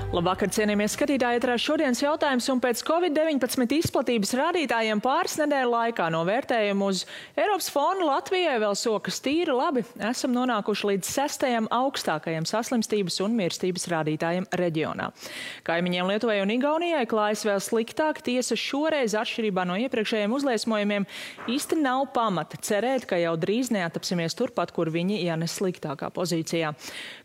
Labvakar, cienījamie skatītāji, ietrā šodienas jautājums, un pēc Covid-19 izplatības rādītājiem pāris nedēļu laikā no vērtējumu uz Eiropas fonu Latvijai vēl sokas tīri labi. Esam nonākuši līdz 6. augstākajam saslimstības un mirstības rādītājiem reģionā. Kaimiņiem Lietuvai un Igaunijai klājas vēl sliktāk, tiesa šoreiz atšķirībā no iepriekšējiem uzliesmojumiem īsti nav pamata cerēt, ka jau drīz neatapsimies turpat, kur viņi, ja ne sliktākā pozīcijā.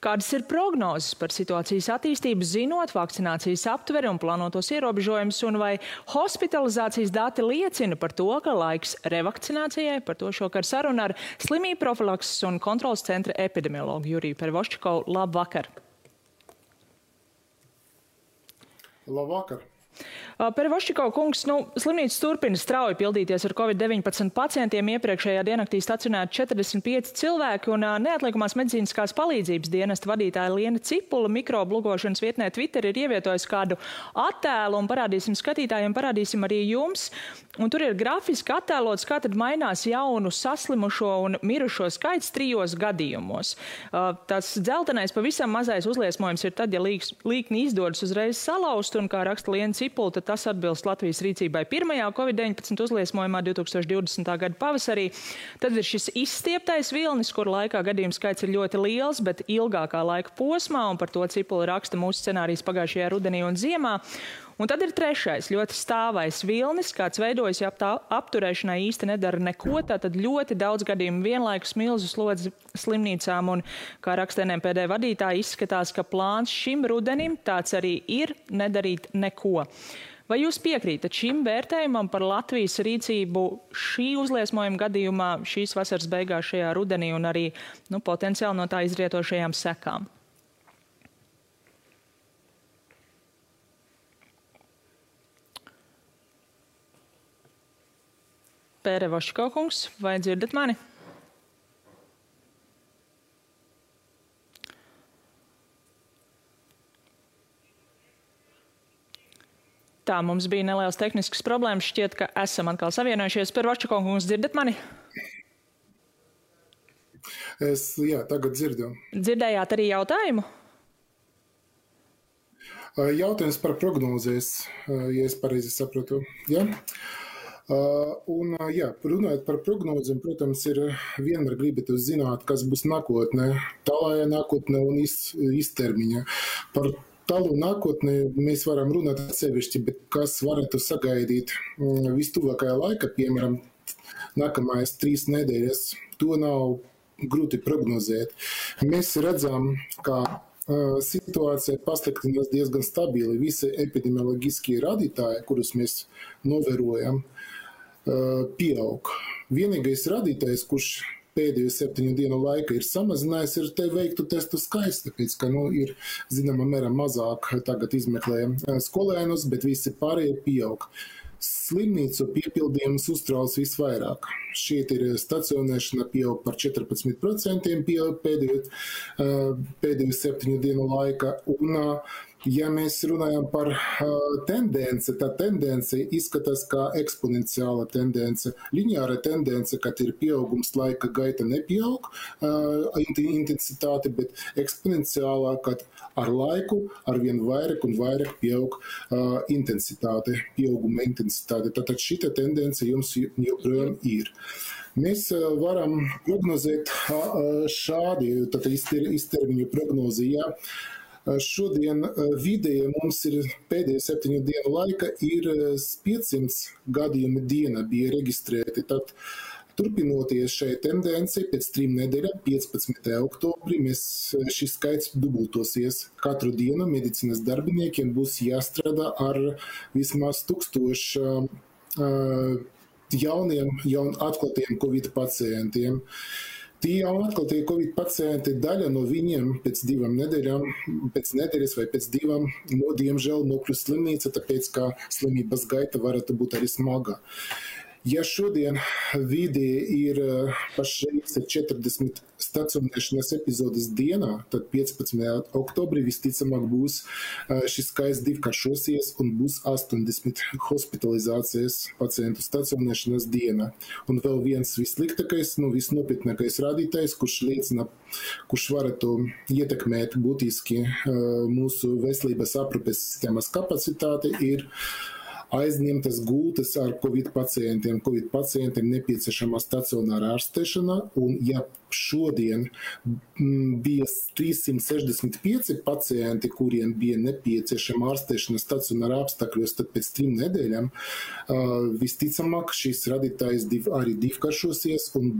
Kādas ir prognozes par situācijas attīstību, zinot vakcinācijas aptveri un plānotos ierobežojumus, un vai hospitalizācijas dati liecina par to, ka laiks revakcinācijai? Par to šokar saruna ar slimību profilakses un kontrolas centra epidemiologu Juriju Pervoščikovu. Labvakar! Labvakar! Pervoščikov kungs, slimnīca turpina strauji pildīties ar Covid-19 pacientiem. Iepriekšējā diennaktī stacionēti 45 cilvēki, un neatliekamās medicīniskās palīdzības dienesta vadītāja Liena Cipula mikrobu lugošanas vietnē Twitter ir ievietojusi kādu attēlu, un parādīsim skatītājiem, parādīsim arī jums. Un tur ir grafiski attēlots, kā tad mainās jaunu saslimušo un mirušo skaits 3 gadījumos. Tas dzeltenais pavisam mazais uzliesmojums ir tad, ja līkni izdodas uzreiz salauzt, un kā raksta Liena Cipula, tad tas atbilst Latvijas rīcībai pirmajā Covid-19 uzliesmojumā 2020. gada pavasarī. Tad ir šis izstieptais vilnis, kur laikā gadījumu skaits ir ļoti liels, bet ilgākā laika posmā, un par to Cipula raksta mūsu scenārijas pagājušajā rudenī un ziemā. Un tad ir trešais, ļoti stāvais vilnis, kāds veidojas, ja apturēšanai īsti nedara neko, tātad ļoti daudz gadījumu vienlaikus milzu slodzi slimnīcām, un, kā raksta NMPD vadītāji, izskatās, ka plāns šim rudenim tāds arī ir nedarīt neko. Vai jūs piekrītat šim vērtējumam par Latvijas rīcību šī uzliesmojuma gadījumā, šīs vasaras beigās šajā rudenī un arī potenciāli no tā izrietošajām sekām? Pervoščikov kungs, vai dzirdat mani? Tā, mums bija nelielas tehniskas problēmas. Šķiet, ka esam atkal savienojušies. Pervoščikov kungs, dzirdat mani? Jā, tagad dzirdu. Dzirdējāt arī jautājumu? Jautājums par prognozēs, ja es pareizi saprotu. Ja? Runājot par prognozēm, protams, ir vienmēr gribat zināt, kas būs nākotnē, tālākajā nākotnē un īstermiņā. Par tālu nākotnē mēs varam runāt atsevišķi, bet kas varētu sagaidīt vistuvākajā laikā, piemēram, nākamais 3 nedēļas, to nav grūti prognozēt. Mēs redzam, ka situācija pasliktinās diezgan stabili. Visi epidemioloģiskie rādītāji, kurus mēs novērojam, pieaug. Vienīgais rādītājs, kurš pēdējo 7 dienu laikā ir samazinājis, ir te veiktu testu skaits, tāpēc, ka ir zināmā mērā mazāk tagad izmeklējam skolēnus, bet visi pārējie pieaug. Slimnīcu piepildījums uztrauc visvairāk. Šeit ir stacionēšana pieaug par 14% pēdējo 7 dienu laikā. Un, ja mēs runājam par tendenci, tā tendence izskatās kā eksponenciāla tendence. Lineāra tendence, kad ir pieaugums laika gaita nepieaug intensitāte, bet eksponenciālā, kad ar laiku arvien vairāk un vairāk pieaug intensitāte, pieauguma intensitāte. Tātad šita tendence jums joprojām ir. Mēs varam prognozēt šādi, tātad iztermiņu prognozi, ja. Šodien vidēji mums ir pēdējo 7 dienu laika ir 500 gadījumi diena bija reģistrēti. Tad turpinoties šai tendenci, pēc 3 nedēļām, 15. oktobrī, šis skaits dubultosies. Katru dienu medicīnas darbiniekiem būs jāstrādā ar vismaz 1000 jaun atklātiem Covid pacientiem. Tie jau atklātie Covid pacienti, daļa no viņiem pēc 2 nedēļām, pēc nedēļas vai pēc 2, diemžēl nokļūst slimnīca, tāpēc, ka slimības gaita varētu būt arī smaga. Ja šodien vidē ir pašreiz 40 stacionēšanas epizodes dienā, tad 15. oktobrī visticamāk būs šis skaits divkāršosies un būs 80 hospitalizācijas pacientu stacionēšanas dienā. Un vēl viens vissliktākais, visnopietnākais rādītājs, kurš varētu ietekmēt būtiski mūsu veselības aprūpes sistēmas kapacitāti, ir aizņemtas gultas ar Covid pacientiem. Covid pacientiem nepieciešama stacionāra ārstēšana, un ja šodien bija 365 pacienti, kuriem bija nepieciešama ārstēšana stacionāra apstākļos, tad pēc 3 nedēļām visticamāk šīs radītājs arī divkāršosies un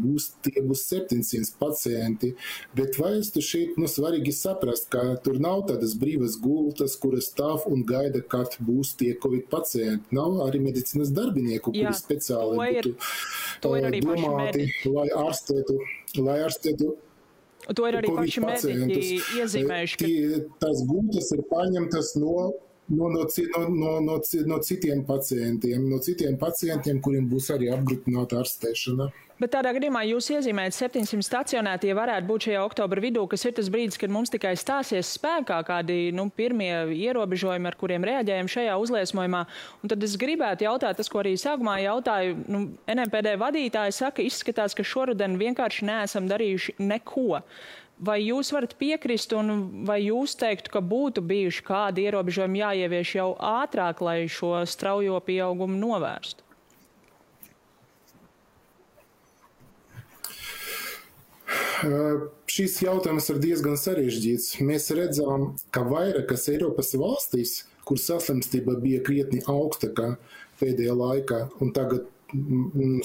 tie būs 700 pacienti. Bet vajadzētu šeit svarīgi saprast, ka tur nav tādas brīvas gultas, kuras stāv un gaida, kad būs tie Covid pacienti. Nav arī medicīnas darbinieku, kuri speciāli būtu domāti, lai ārstētu To ir arī paši mediķi iezīmējuši. Tās gultas ir paņemtas no citiem pacientiem, kuriem būs arī apgrūtināta ārstēšana. Bet tādā gadījumā jūs iezīmējat 700 stacionētie varētu būt šajā oktobra vidū, kas ir tas brīdis, kad mums tikai stāsies spēkā kādi pirmie ierobežojumi, ar kuriem reaģējam šajā uzliesmojumā. Un tad es gribētu jautāt, tas, ko arī sākumā jautāju, NMPD vadītāji saka, izskatās, ka šoruden vienkārši neesam darījuši neko. Vai jūs varat piekrist un vai jūs teiktu, ka būtu bijuši kādi ierobežojumi jāievieš jau ātrāk, lai šo straujo pieaugumu novērstu? Šis jautājums ir diezgan sarežģīts. Mēs redzam, ka vairākas Eiropas valstīs, kur saslimstība bija krietni augstākā pēdējā laikā un tagad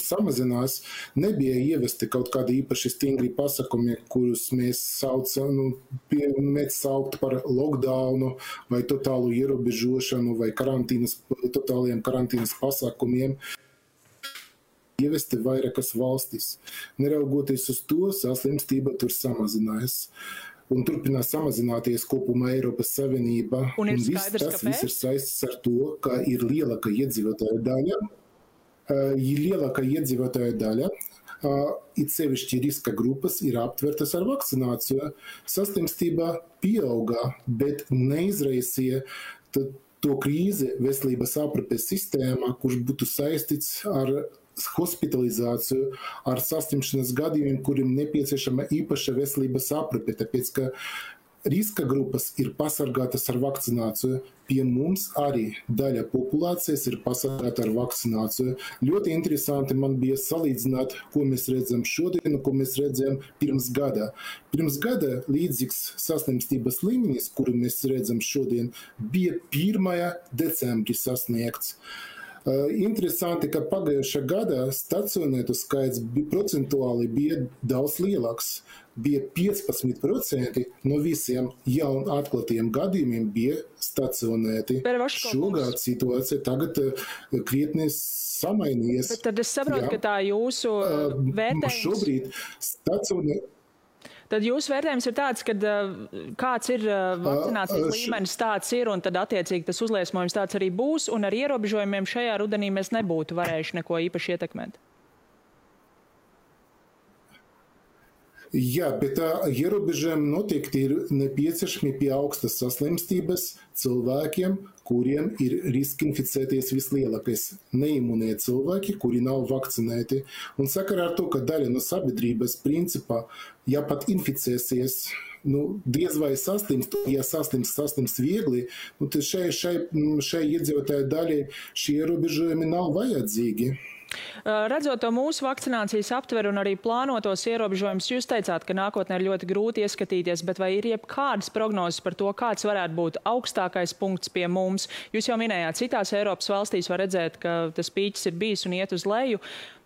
samazinās, nebija ievesti kaut kādi īpaši stingri pasakumi, kurus mēs sauktu par lockdownu vai totālu ierobežošanu vai totāliem karantīnas pasākumiem. Ievesti vairākas valstis. Neraugoties uz to, saslimstība tur samazinās. Un turpinās samazināties kopumā Eiropas Savienība. Un viss ir saistīts ar to, ka ir lielāka iedzīvotāja daļa. It sevišķi riska grupas ir aptvertas ar vakcināciju. Saslimstība pieauga, bet neizraisīja to krīzi veselības aprūpes sistēmā, kurš būtu saistīts ar hospitalizāciju, ar saslimšanas gadījumiem, kuriem nepieciešama īpaša veselības aprūpe, tāpēc, ka riska grupas ir pasargātas ar vakcināciju. Pie mums arī daļa populācijas ir pasargāta ar vakcināciju. Ļoti interesanti man bija salīdzināt, ko mēs redzam šodien un ko mēs redzam pirms gada. Pirms gada līdzīgs saslimstības līmenis, kuru mēs redzam šodien, bija 1. decembrī sasniegts. Interesanti, ka pagājušā gada stacionētu skaits procentuāli bija daudz lielāks. Bija 15% no visiem jaun atklātiem gadījumiem bija stacionēti. Šogad situācija tagad krietni samainījies. Bet tad es saprotu, ka tā jūsu vērtējums... Šobrīd stacionēti. Tad jūsu vērtējums ir tāds, ka kāds ir vakcinācijas līmenis, tāds ir, un tad attiecīgi tas uzliesmojums tāds arī būs, un ar ierobežojumiem šajā rudenī mēs nebūtu varējuši neko īpaši ietekmēt. Jā, bet ierobežojumi noteikti ir nepieciešami pie augstas saslimstības cilvēkiem, kuriem ir riski inficēties vislielākais. Neimunie cilvēki, kuri nav vakcinēti. Un sakarā ar to, ka daļa no sabiedrības principā, ja pat inficēsies, diez vai saslimst, ja saslimst viegli, tad šai iedzīvotāju daļai šie ierobežojumi nav vajadzīgi. Redzot to mūsu vakcinācijas aptveru un arī plānotos ierobežojumus, jūs teicāt, ka nākotnē ir ļoti grūti ieskatīties, bet vai ir jebkādas prognozes par to, kāds varētu būt augstākais punkts pie mums? Jūs jau minējāt, citās Eiropas valstīs var redzēt, ka tas pīķis ir bijis un iet uz leju.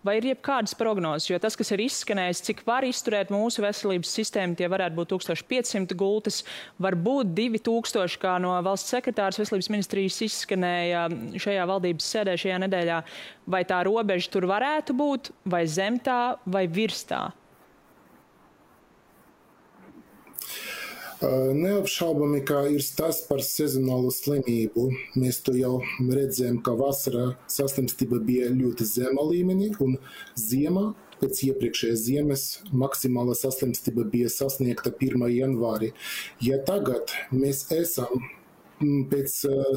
Vai ir jebkādas prognozes? Jo tas, kas ir izskanējis, cik var izturēt mūsu veselības sistēmu, tie varētu būt 1500 gultas, varbūt 2000, kā no valsts sekretārs veselības ministrijas izskanēja šajā valdības sēdē šajā nedēļā. Vai tā robeža tur varētu būt, vai zem tā, vai virs tā? Neapšaubami, ka ir stāsts par sezonālu slimību. Mēs to jau redzējām, ka vasarā saslimstība bija ļoti zema līmenī, un ziemā, pēc iepriekšējās ziemas, maksimāla saslimstība bija sasniegta 1. janvārī. Ja tagad mēs esam pēc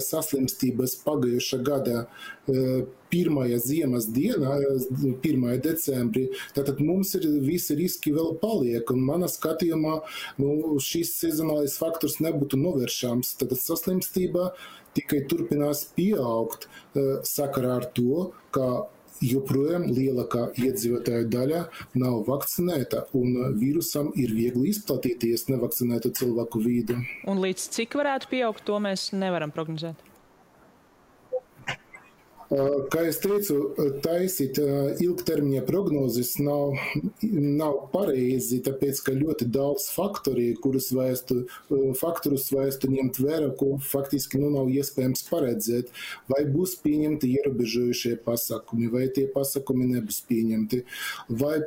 saslimstības pagājušā gada 1. ziemas dienā, 1. decembrī, tātad mums ir visi riski vēl paliek, un manā skatījumā šis sezonālais faktors nebūtu novēršams. Tātad saslimstība tikai turpinās pieaugt sakarā ar to, ka joprojām lielākā iedzīvotāju daļa nav vakcinēta, un vīrusam ir viegli izplatīties nevakcinētu cilvēku vidū. Un līdz cik varētu pieaugt, to mēs nevaram prognozēt? Kā es teicu, taisīt ilgtermiņa prognozes nav pareizi, tāpēc, ka ļoti daudz faktorus vajadzētu ņemt vērā, ko faktiski nav iespējams paredzēt. Vai būs pieņemti ierobežojušie pasākumi, vai tie pasākumi nebūs pieņemti, vai,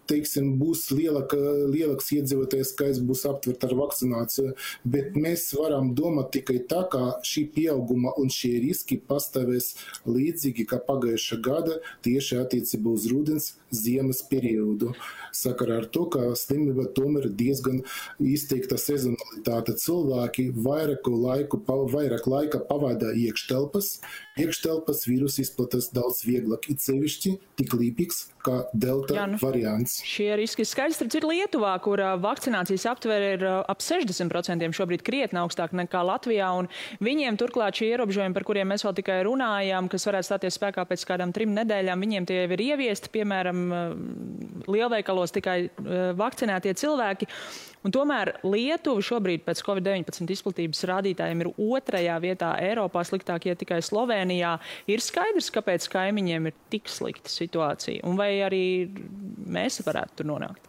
teiksim, būs lielāks iedzīvotājs skaits būs aptvert ar vakcināciju, bet mēs varam domāt tikai tā, ka šī pieauguma un šie riski pastāvēs līdzīgi kā pagājušā gada tieši attiecībā uz rudens ziemas periodu. Sakarā ar to, ka slimība tomēr diezgan izteikta sezonalitāte. Cilvēki vairāk laika pavada iekštelpas vīrus izplatās daudz vieglāk, it sevišķi tik līpīgs kā delta variants. Šie riski skaidrs ir Lietuvā, kur vakcinācijas aptvere ir ap 60%, šobrīd krietni augstāk nekā Latvijā, un viņiem turklāt šie ierobežojumi, par kuriem mēs vēl tikai runājām, kas varētu stāties spēkā pēc kādām 3 nedēļām, viņiem tie jau ir ieviesti, piemēram, lielveikalos tikai vakcinētie cilvēki. Un tomēr Lietuva šobrīd pēc Covid-19 izplatības rādītājiem ir 2. vietā Eiropā, sliktāk iet tikai Slovenijā. Ir skaidrs, kāpēc kaimiņiem ir tik slikta situācija, un vai arī mēs varētu tur nonākt?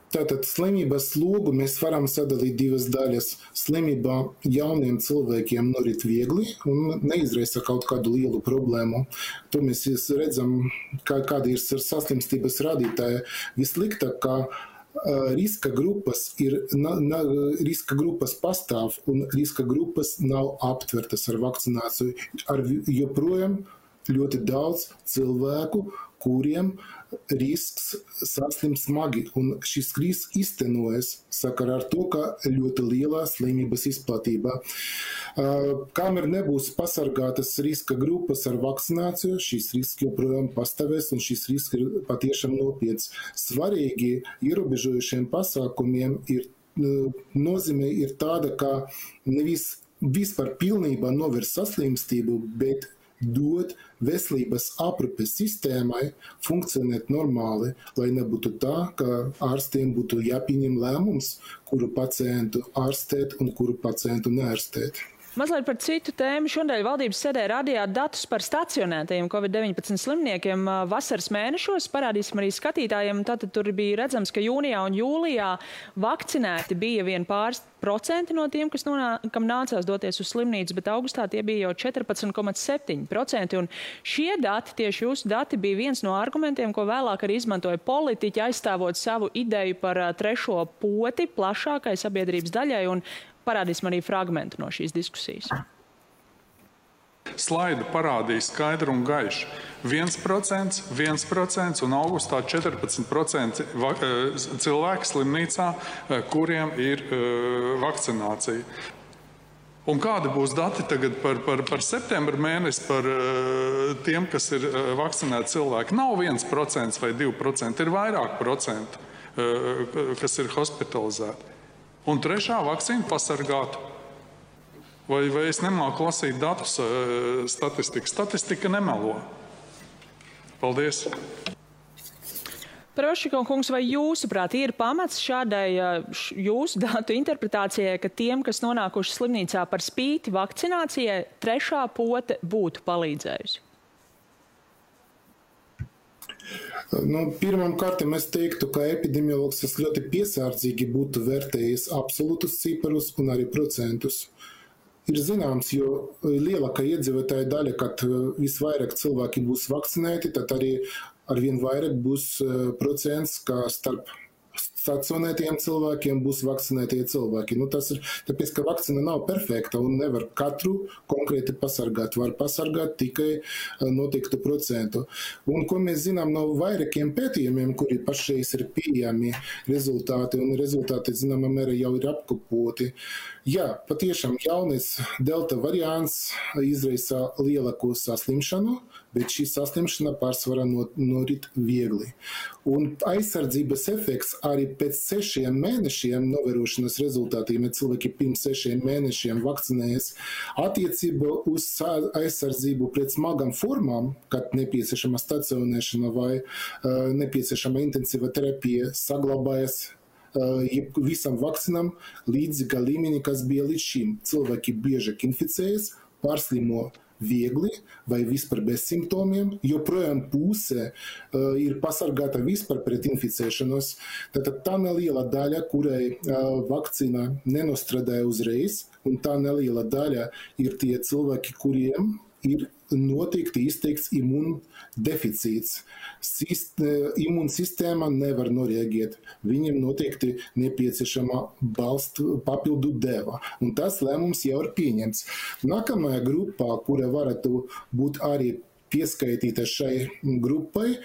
Tātad slimības logu mēs varam sadalīt 2 daļas. Slimība jauniem cilvēkiem norit viegli un neizraisa kaut kādu lielu problēmu. To mēs redzam, kāda ir saslimstības rādītāja. Vissliktāk, ka riska grupas pastāv un riska grupas nav aptvertas ar vakcināciju. Joprojām ļoti daudz cilvēku, kuriem risks saslimt smagi, un šis risks iztenojas sakarā ar to, ka ļoti lielā slimības izplatība. Kamēr nebūs pasargātas riska grupas ar vakcināciju, šis risks joprojām pastāvēs, un šis risks ir patiešām nopietns. Svarīgi ierobežojušiem pasākumiem nozīme ir tāda, ka nevis vispār pilnībā novērst saslimstību, bet dot veselības aprūpes sistēmai funkcionēt normāli, lai nebūtu tā, ka ārstiem būtu jāpieņem lēmums, kuru pacientu ārstēt un kuru pacientu neārstēt. Mazliet par citu tēmu. Šodien valdības sēdē rādījāt datus par stacionētajiem Covid-19 slimniekiem vasaras mēnešos. Parādīsim arī skatītājiem. Tātad tur bija redzams, ka jūnijā un jūlijā vakcinēti bija vien pāris procenti no tiem, kam nācās doties uz slimnīcu, bet augustā tie bija jau 14,7%. Un šie dati, tieši jūsu dati, bija viens no argumentiem, ko vēlāk arī izmantoja politiķi, aizstāvot savu ideju par 3. poti plašākai sabiedrības daļai, un parādīsim arī fragmentu no šīs diskusijas. Slaida parādīja skaidru un gaišu. 1% un augustā 14% cilvēki slimnīcā, kuriem ir vakcinācija. Un kādi būs dati tagad par septembra mēnesi par tiem, kas ir vakcinēti cilvēki? Nav 1% vai 2%, ir vairāk procentu, kas ir hospitalizēti. Un 3. vakcīna pasargātu. Vai es nemāku lasīt datus statistikas? Statistika nemelo. Paldies. Prošiko kungs, vai jūsuprāt ir pamats šādai jūsu datu interpretācijai, ka tiem, kas nonākuši slimnīcā par spīti vakcinācijai, 3. pote būtu palīdzējusi? Pirmām kārtām es teiktu, ka epidemiologs ļoti piesardzīgi būtu vērtējis absolūtus ciparus un arī procentus. Ir zināms, jo lielākā iedzīvotāja daļa, kad visvairāk cilvēki būs vakcinēti, tad arī arvien vairāk būs procents, kā starp stacionētiem cilvēkiem būs vakcinētie cilvēki. Tas ir tāpēc, ka vakcina nav perfekta un nevar katru konkrēti pasargāt. Var pasargāt tikai noteiktu procentu. Un ko mēs zinām no vairākiem pētījumiem, kuri pašreiz ir pieejami rezultāti, un rezultāti, zināmā mērā, jau ir apkopoti. Jā, patiešām jaunais delta variants izraisa lielāku saslimšanu, bet šī saslimšana pārsvarā norit viegli. Un aizsardzības efekts arī pēc 6 mēnešiem novērošanas rezultātiem, ja cilvēki pirms 6 mēnešiem vakcinējas, attiecībā uz aizsardzību pret smagām formām, kad nepieciešama stacionēšana vai nepieciešama intensīva terapija, saglabājas visam vakcinam līdzīga līmenī, kas bija līdz šim. Cilvēki biežāk inficējas, pārslimo viegli vai vispār bez simptomiem, joprojām puse ir pasargāta vispār pret inficēšanos. Tātad tā neliela daļa, kurai vakcīna nenostrādāja uzreiz, un tā neliela daļa ir tie cilvēki, kuriem ir noteikti izteikts imūndeficīts. Imūnsistēma nevar noreaģēt. Viņiem noteikti nepieciešama papildu deva. Un tas lēmums jau ir pieņemts. Nākamajā grupā, kura varētu būt arī pieskaitīta šai grupai,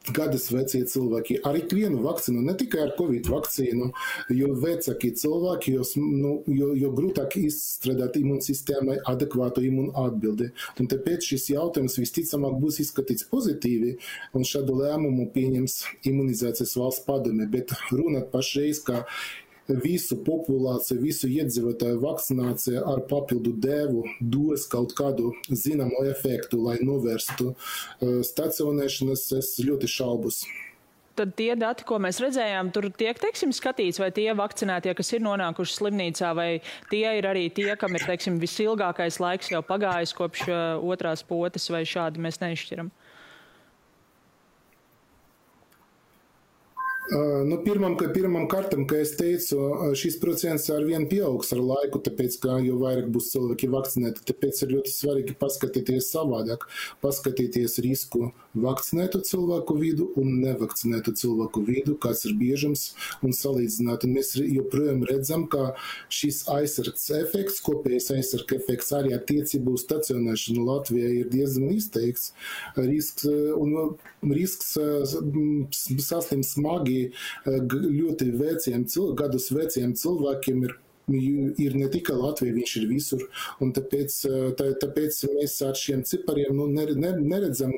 gadus vecie cilvēki ar ikvienu vakcīnu, ne tikai ar Covid vakcīnu, jo vecāki cilvēki, jo grūtāk izstrādāt imūnsistēmai adekvātu imūnu atbildi. Un tāpēc šis jautājums visticamāk būs izskatīts pozitīvi, un šādu lēmumu pieņems imunizācijas valsts padome. Bet runāt pašreiz, ka visu populāciju, visu iedzīvotāju vakcinācija ar papildu devu dos kaut kādu zināmu efektu, lai novērstu stacionēšanas, es ļoti šaubos. Tad tie dati, ko mēs redzējām, tur tiek, teiksim, skatīts, vai tie vakcinētie, kas ir nonākuši slimnīcā, vai tie ir arī tie, kam ir, teiksim, visilgākais laiks jau pagājis kopš otrās potes, vai šādi mēs neizšķiram? Pirmam kārtam, kā es teicu, šis procents arvien pieaugs ar laiku, tāpēc, ka jo vairāk būs cilvēki vakcinēti, tāpēc ir ļoti svarīgi paskatīties savādāk, paskatīties risku vakcinētu cilvēku vidu un nevakcinētu cilvēku vidu, kāds ir biežums un salīdzināt. Un mēs joprojām redzam, ka šis aizsargs efekts, kopējais aizsargs efekts arī attiecībā uz stacionēšanu Latvijā ir diezgan izteikts. Risks saslimt smagi ļoti gadus veciem cilvēkiem ir ne tikai Latvija, viņš ir visur. Un tāpēc mēs ar šiem cipariem neredzam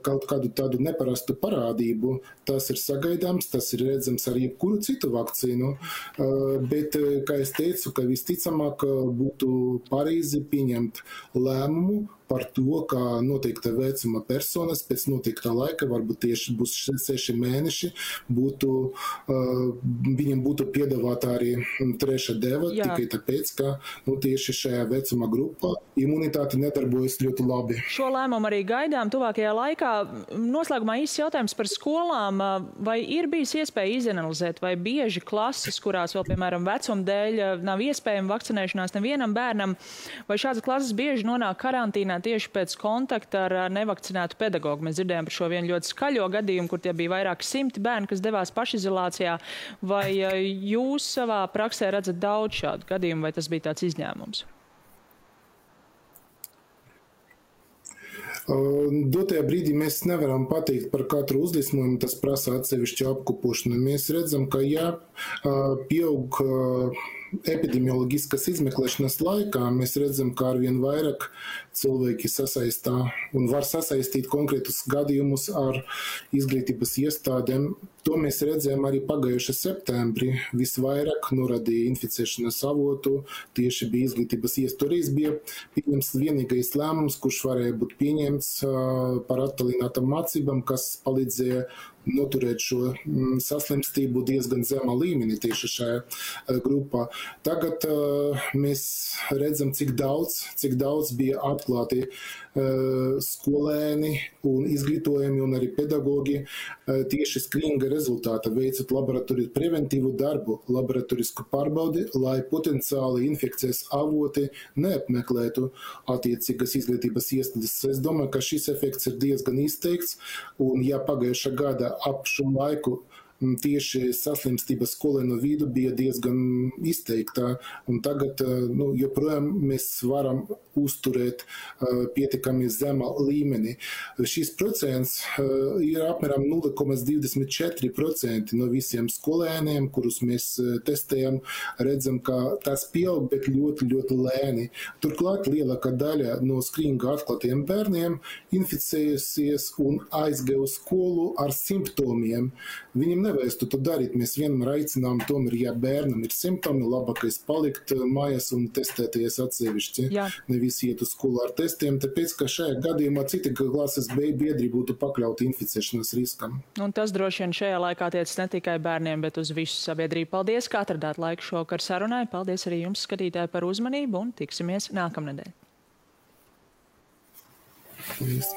kaut kādu tādu neparastu parādību. Tas ir sagaidāms, tas ir redzams ar jebkuru citu vakcīnu. Bet, kā es teicu, ka visticamāk būtu pareizi pieņemt lēmumu par to, ka noteikta vecuma personas pēc noteiktā laika, varbūt tieši būs 6 mēneši, viņiem būtu piedāvāta arī 3. deva, tikai tāpēc, ka tieši šajā vecuma grupā imunitāte nedarbojas ļoti labi. Šo lēmumu arī gaidām tuvākajā laikā. Noslēgumā īsts jautājums par skolām. Vai ir bijis iespēja izanalizēt, vai bieži klases, kurās vēl, piemēram, vecuma dēļ nav iespējama vakcinēšanās nevienam bērnam, vai šādas klases bieži nonāk karantīnā tieši pēc kontakta ar nevakcinētu pedagogu? Mēs dzirdējām par šo vienu ļoti skaļo gadījumu, kur tie bija vairāki 100 bērni, kas devās pašizolācijā. Vai jūs savā praksē redzat daudz šādu gadījumu, vai tas bija tāds izņēmums? Dotajā brīdī mēs nevaram pateikt par katru uzliesmojumu, tas prasa atsevišķu apkopošanu. Mēs redzam, ka pieaug epidemioloģiskas izmeklēšanas laikā, mēs redzam, ka arvien vairāk cilvēki sasaistā un var sasaistīt konkrētus gadījumus ar izglītības iestādēm. To mēs redzējām arī pagājušā septembrī. Visvairāk norādīja inficēšanas avotu, tieši bija izglītības iestādes. Bija pieņemts vienīgais lēmums, kurš varēja būt pieņemts par attālinātām mācībām, kas palīdzēja noturēt šo saslimstību diezgan zemā līmenī tieši šajā grupā. Tagad mēs redzam, cik daudz bija atklāti skolēni un izglītojumi un arī pedagogi tieši skrīninga rezultāta veicot laboratoriju preventīvu darbu, laboratorisku pārbaudi, lai potenciāli infekcijas avoti neapmeklētu attiecīgas izglītības iestādes. Es domāju, ka šis efekts ir diezgan izteikts, un ja pagājušā gada ap šo laiku tieši saslimstība skolēnu vidū bija diezgan izteikta, un tagad joprojām mēs varam uzturēt pietiekami zemā līmenī. Šis procents ir apmēram 0,24% no visiem skolēniem, kurus mēs testējam, redzam, ka tas pieaug, bet ļoti, ļoti lēni. Turklāt lielākā daļa no skrīninga atklātiem bērniem inficējusies un aizgāja uz skolu ar simptomiem. Viņiem nevajadzētu to darīt. Mēs vienmēr aicinām, tomēr, ja bērnam ir simptomi, labākais palikt mājās un testēties atsevišķi. Nevis iet uz skolu ar testiem, tāpēc, ka šajā gadījumā citi klases biedri būtu pakļauti inficēšanas riskam. Un tas droši vien šajā laikā tiec ne tikai bērniem, bet uz visu sabiedrību. Paldies, ka atradāt laiku šovakar sarunai. Paldies arī jums, skatītāji, par uzmanību un tiksimies nākamnedēļ. Paldies.